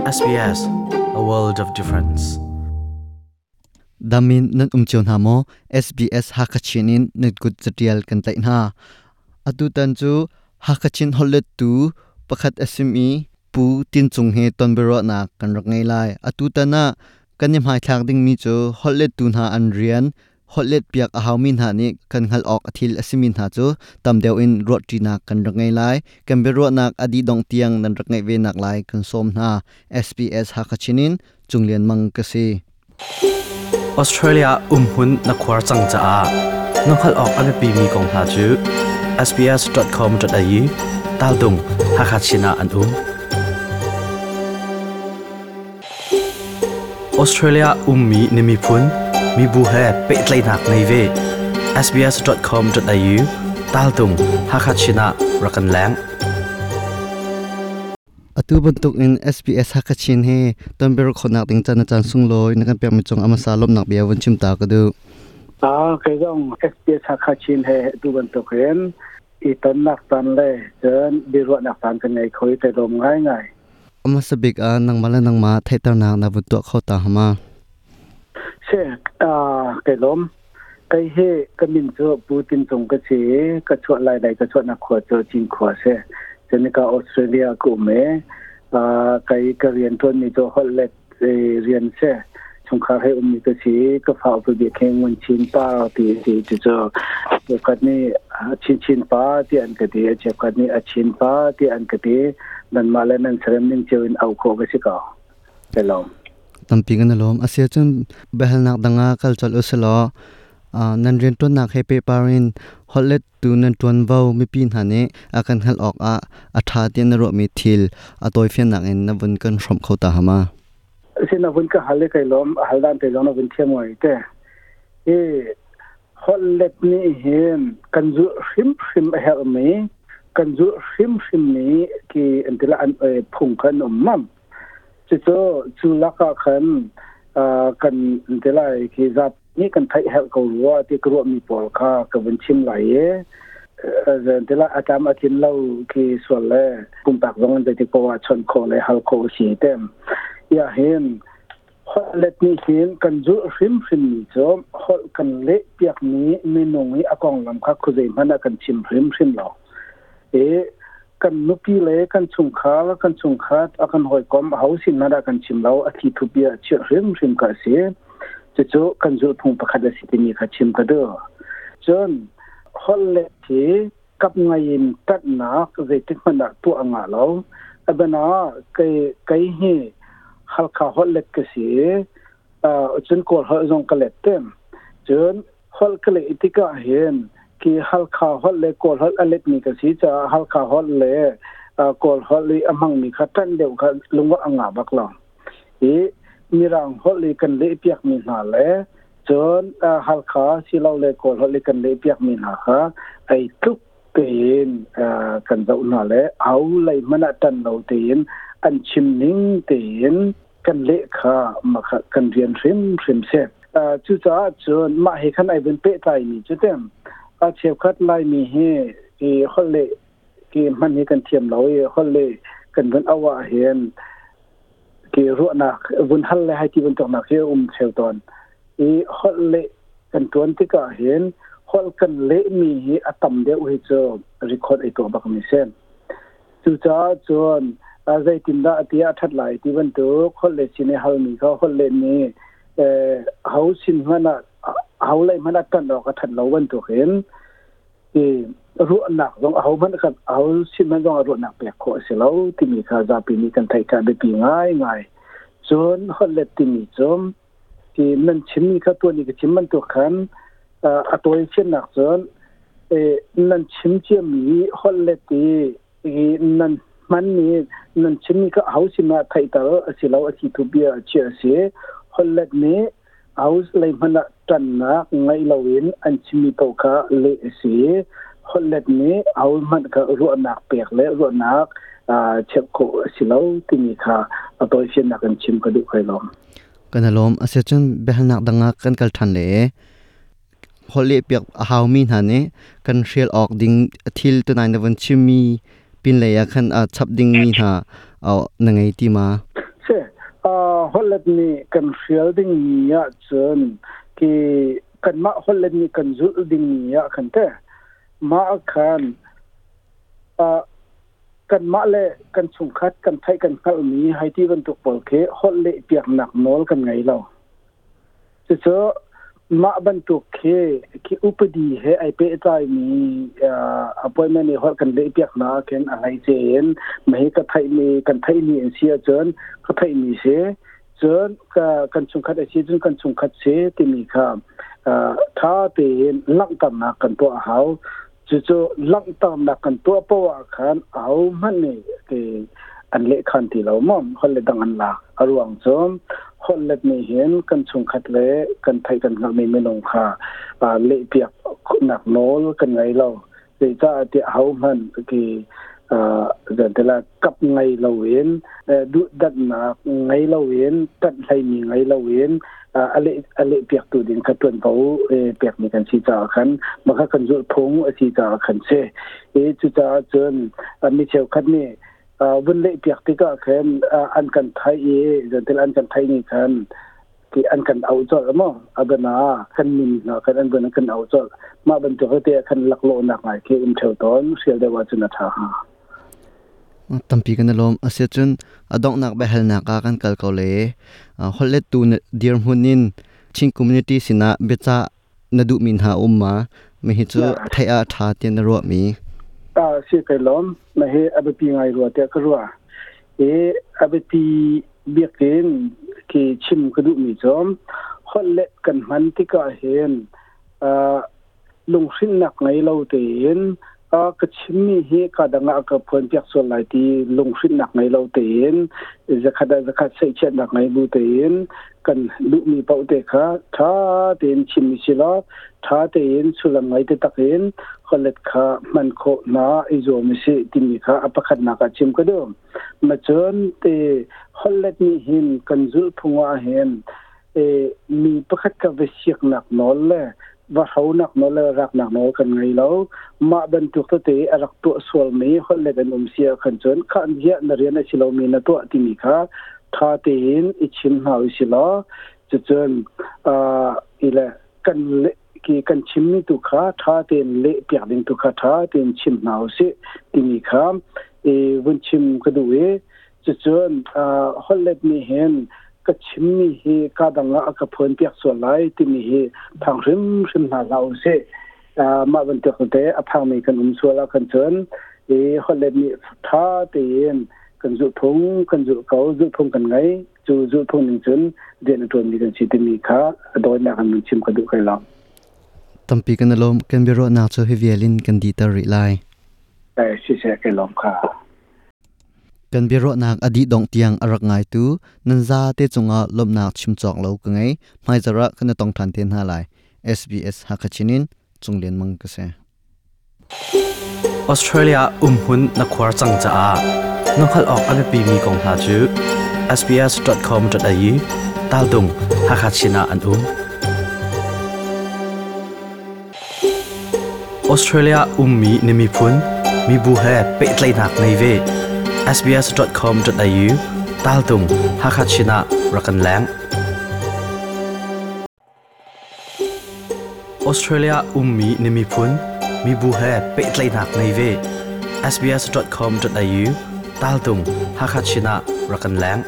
SBS, a world of difference. Damin nan um cio hna maw? SBS Hakachin in nan kut catial kan tlaih hna. Atu tan cu Hakachin holhlettu pakhat a simi Pu Tin Cung he tonbiaruahnak kan rak ngei lai. Atu tan ah kan i hmaithlak dingmi cu holhlettu hna an rian, holhlet piak a haumi hna nih kan hngalh awk a thil a simi hna cu tam deuh in ruahṭinak kan rak ngei lai. Kan biaruahnak a dih dongh tiang nan rak ngaih ve nak lai kan sawm hna. SBS Hakachin in Cung Lian Mang ka si. Australia umhmun na khuar cang caah na hngalh awk a biapimi kong hna cu sbs.com.au taltung Hakha Chin ah an um. Australia ummi na miphun, mibu he pehtlaihnak ngei ve. sbs.com.au taltung Hakha Chin ah rak kan leng. Atu bantuk in SBS Hakachin he tonbiaruah khawhnak ding caan na caan sunglawi na kan pekmi cung amasa lawmhnak bia vun chim ta ka duh. Kei zong SBS Hakachin he atu bantuk in i tonnak caan le cun biaruahnak caan kan ngei kho i kai lawm ngaingai. Amasa bik ah nangmah le nangmah theihternak na vun tuah kho ta hama. Si, kai lawm. Kei hi ka min cu Pu Tin Cung ka si i ka chuah lai lei ka chuahnak khua cu Cinkhua a si. Cunika Australia ka um i kei ka rian ṭuanmi cu holh let rian si. Chungkhar he ummi ka si i ka fa upa bik hi Ngun Chin Pa ti a si. Cucu cheukhat nih Chinchin Pa tiah an ka ti, cheukhat nih A Chin Pa tiah an ka ti. Nanmah le nan serem ning cio in auh khawh ka si ko. Ka lawm. Tampi kan i lawm. A si ahcun biahalnak dang ah kal colh usilaw nan rianṭuannak he pehpar in holhlettu nan ṭuanvo mipi hna nih a kan hngalh awk ah a ṭha tiah na ruahmi thil a tawifiannak in na vun kan hrawmh kho ta hama? Si na vun ka hal i kai lawm. A hal dan te zong na vun thiam ngai te. Hi holhlet nih hin kan zulh hrimhrim a herhmi kan zulh hrimhrim mi ki an ti la an phung kha an um mam. Cucu cu lakah khan kan ti lai khi zat nih kan theih herh ko rua ti ka ruahmi pawl kha ka vun chim lai i ti lai a tlam a tlin lo khi sual le pumpak zong in zeitik paoh ah chawnh khawh le hal khawh a si tem. Ya hin holh let nih hin kan zulh hrimhrim mi cu holh kan leh piakmi minung i a konglam kha khuazei hmanh ah kan chim hrimhrim lo. I kan nupi le kan chungkhar kan chungkhat a kan hawikom aho sin hmanh ah kan chim lo a thli thupi ah chirh hrimhrim ka si cucu kan zulhphung pakhat a si timi kha chim ka duh cun holh le hi kap ngai in ṭanhnak zeitik hmanh ah tuah a ngah lo abana kei kei hi Halkha holh let ka si cun Kawl holh zong ka let tem cun holh ka leh tikah hin ki Halkha holh le Kawl holh a letmi ka si caah Halkha holh le Kawl holh i a hmangmi kha ṭanh deuh kha lungawh a ngah bak lo. I Mirang holh i kan lehpiakmi hna le cun Halkha silole Kawl holh i kan lehpiakmi hna kha ei tluk tein kan zoh hna le au lei hmanh ah ṭan lo tein an chim ning tein kan leh kha makha kan rian hrimhrim si. Cucaah cun mah he khan ai vun pehtlaimi cu tem a cheukhat Laimi hi i holh leh ki hman hi kan thiam lo i holh leh kan vun auh ah hin ki ruahnak vun hal le hai ti bantuknak hi a um theu tawn i holh leh kan tuan tikah hin holh kan lehmi hi a tam deuh hi cu record ei tuah bak mi si. Cucaah cun zeitindah ti a ṭhat lai ti bantuk holh le sin i halmi kha holh le nih ho sin hmanh ah ho lei hmanh ah ṭanh awk a ṭhat lo bantukin i ruahnak zong aho hmanh kha aho sin hmanh zong ah ruahnak pek khawh a si lo timi kha zapi nih kan theih kha biapi ngaingai. Cun holh let timi cu ti nan chimmi kha tuan i ka chim bantuk khan a tawi fiannak cun nan chim ciami holh let i nan hmanmi nan chimmi kha aho sin ah theihter a si lo a si thu bia a chiah a si holh let nih aho lei hmanh ah ṭannak ngaih loin an chimmi paoh kha leh a si holh let nih aho hmanh kha ruahnak pek le ruahnak cheuh khawh a si lo timi kha a tawifiannak in chim ka duh kai lawm. Kan i lawm. Asiahcun biahalnak dang ah kan kal ṭhan le holh lehpiak a haumi hna nih kan hrial awk ding thil tunai na vun chimmi pinlei ah khan a chap dingmi hna na ngei ti ma? Se hollet nih kan hrial ding mi ah cun ki kanmah hollet nih kan zulh ding mi ah khan te mah khan kanmah le kan chungkhat kan theih kan hngalh mi hei ti bantuk pawl khi holh leh piaknak nawl kan ngei lo. Cucu mah bantuk khi khi upadi he ai pehtlai mi appointment i holh kan leh piak hna khin a hleice in mahi ka theih mi kan theih mi an si ahcun ka theih mi si cun ka kan chungkhat a si cun kan chungkhat si timi kha tha tein langhternak kan tuah a hau. Cucu langhternak kan tuah poah ah khan ahohmanh nih ti an lehkhan ti lo maw holh le dang an lak. A ruang cu holh let nih hin kan chungkhat le kan theih kan hngalhmi minung kha lehpiak nak nawl kan ngei lo. Zeicah tiah ahohmanh ti zantila kap ngei loin duhdanhnak ngei loin ṭanh hleimi ngei loin a leh a leh piaktu ding kha ṭuanvo pekmi kan si caah khan mah kha kan zulh phung a si caah khan si i cucaah cun mi cheukhat nih vun leh piak tikah khan an kan theih i zentil an kan theih ni khan ti an kan auh colh maw abana kan min hna kan an vun kan auh colh mah bantuk te khan laklawhnak ngai khi um theo tawn hrial deuh ahcun a ṭha hnga. Tampi kan i lawm. Asiahcun a donghnak biahalnak ah kan kal ko le holhlettu na dirhmun in Chin community sinah biacah na duhmi hna um ma? Mihi cu theih ah ṭha tiah na ruahmi? Si kai lawm. Mahi a biapi ngai rua tiah ka ruah. I a biapi biak in ki chim ka duhmi cu holhlet kan hman tikah hin lunghrinnak ngei lo tein ka chimmi hi ka dang ah ka phuan piak sual lai ti lunghrinnak ngei lo tein zakhat ah zakhat seihchiatnak ngei bu tein kan duhmi paoh te kha ṭha tein chim si law ṭha tein sullam ngei te tak in hollet kha hman khawh hna i zuam si timi kha a pakhatnak ah chim ka duh. Ma cun te hollet nih hin kan zulh phung ah hin mi pakhat ka va siaknak nawl le va hronak nawl le raknak nawl kan ngei lo. Mah bantuk tete a rak tuah sualmi holh let an um si ah khan cun kha ziah na rian a si lomi na tuah timi kha tha tein i chim hna u si law cucun ile kan ki kan chimmi tu kha tha tein leh piak ding tu kha tha tein chim hna u si timi kha i vun chim ka duh i cucun holhlet nih hin ka chimmi hi ka dang ah a ka phuan piak sual lai timi hi phang hrimhrim hna hlah u sih. Mah bantuk te a phangmi kan um sual ah khan cun i holhlet nih tha tein kan zulhphung kan zulh ko, zulhphung kan ngei, cu zulhphung ning cun rian a ṭuanmi kan si timi kha a dawinak in chim ka duh kai lo. Tampi kan i lawm. Kan biaruahnak cu hi vial in kan dihter rih lai. Siseh, kai lawm kha. Kan biaruahnak a dih dongh tiang a rak ngaitu nan zate cungah lawmhnak chim cawk lo ka ngei. Hmaizarh ah kan i tong ṭhan te hna lai. SBS Hakha Chin in Cung Lian Mang ka si. Australia umhmun na khuar cang caah na hngalh awk a biapimi kong hna cu sbs.com.au taldung Hakha Chin ah an um. Australia ummi na miphun, mibu he pehtlaihnak ngei ve. sbs.com.au taltung Hakha Chin ah rak kan leng. Australia ummi na miphun, mibu he pehtlaihnak ngei ve. sbs.com.au taltung Hakha Chin ah rak kan leng.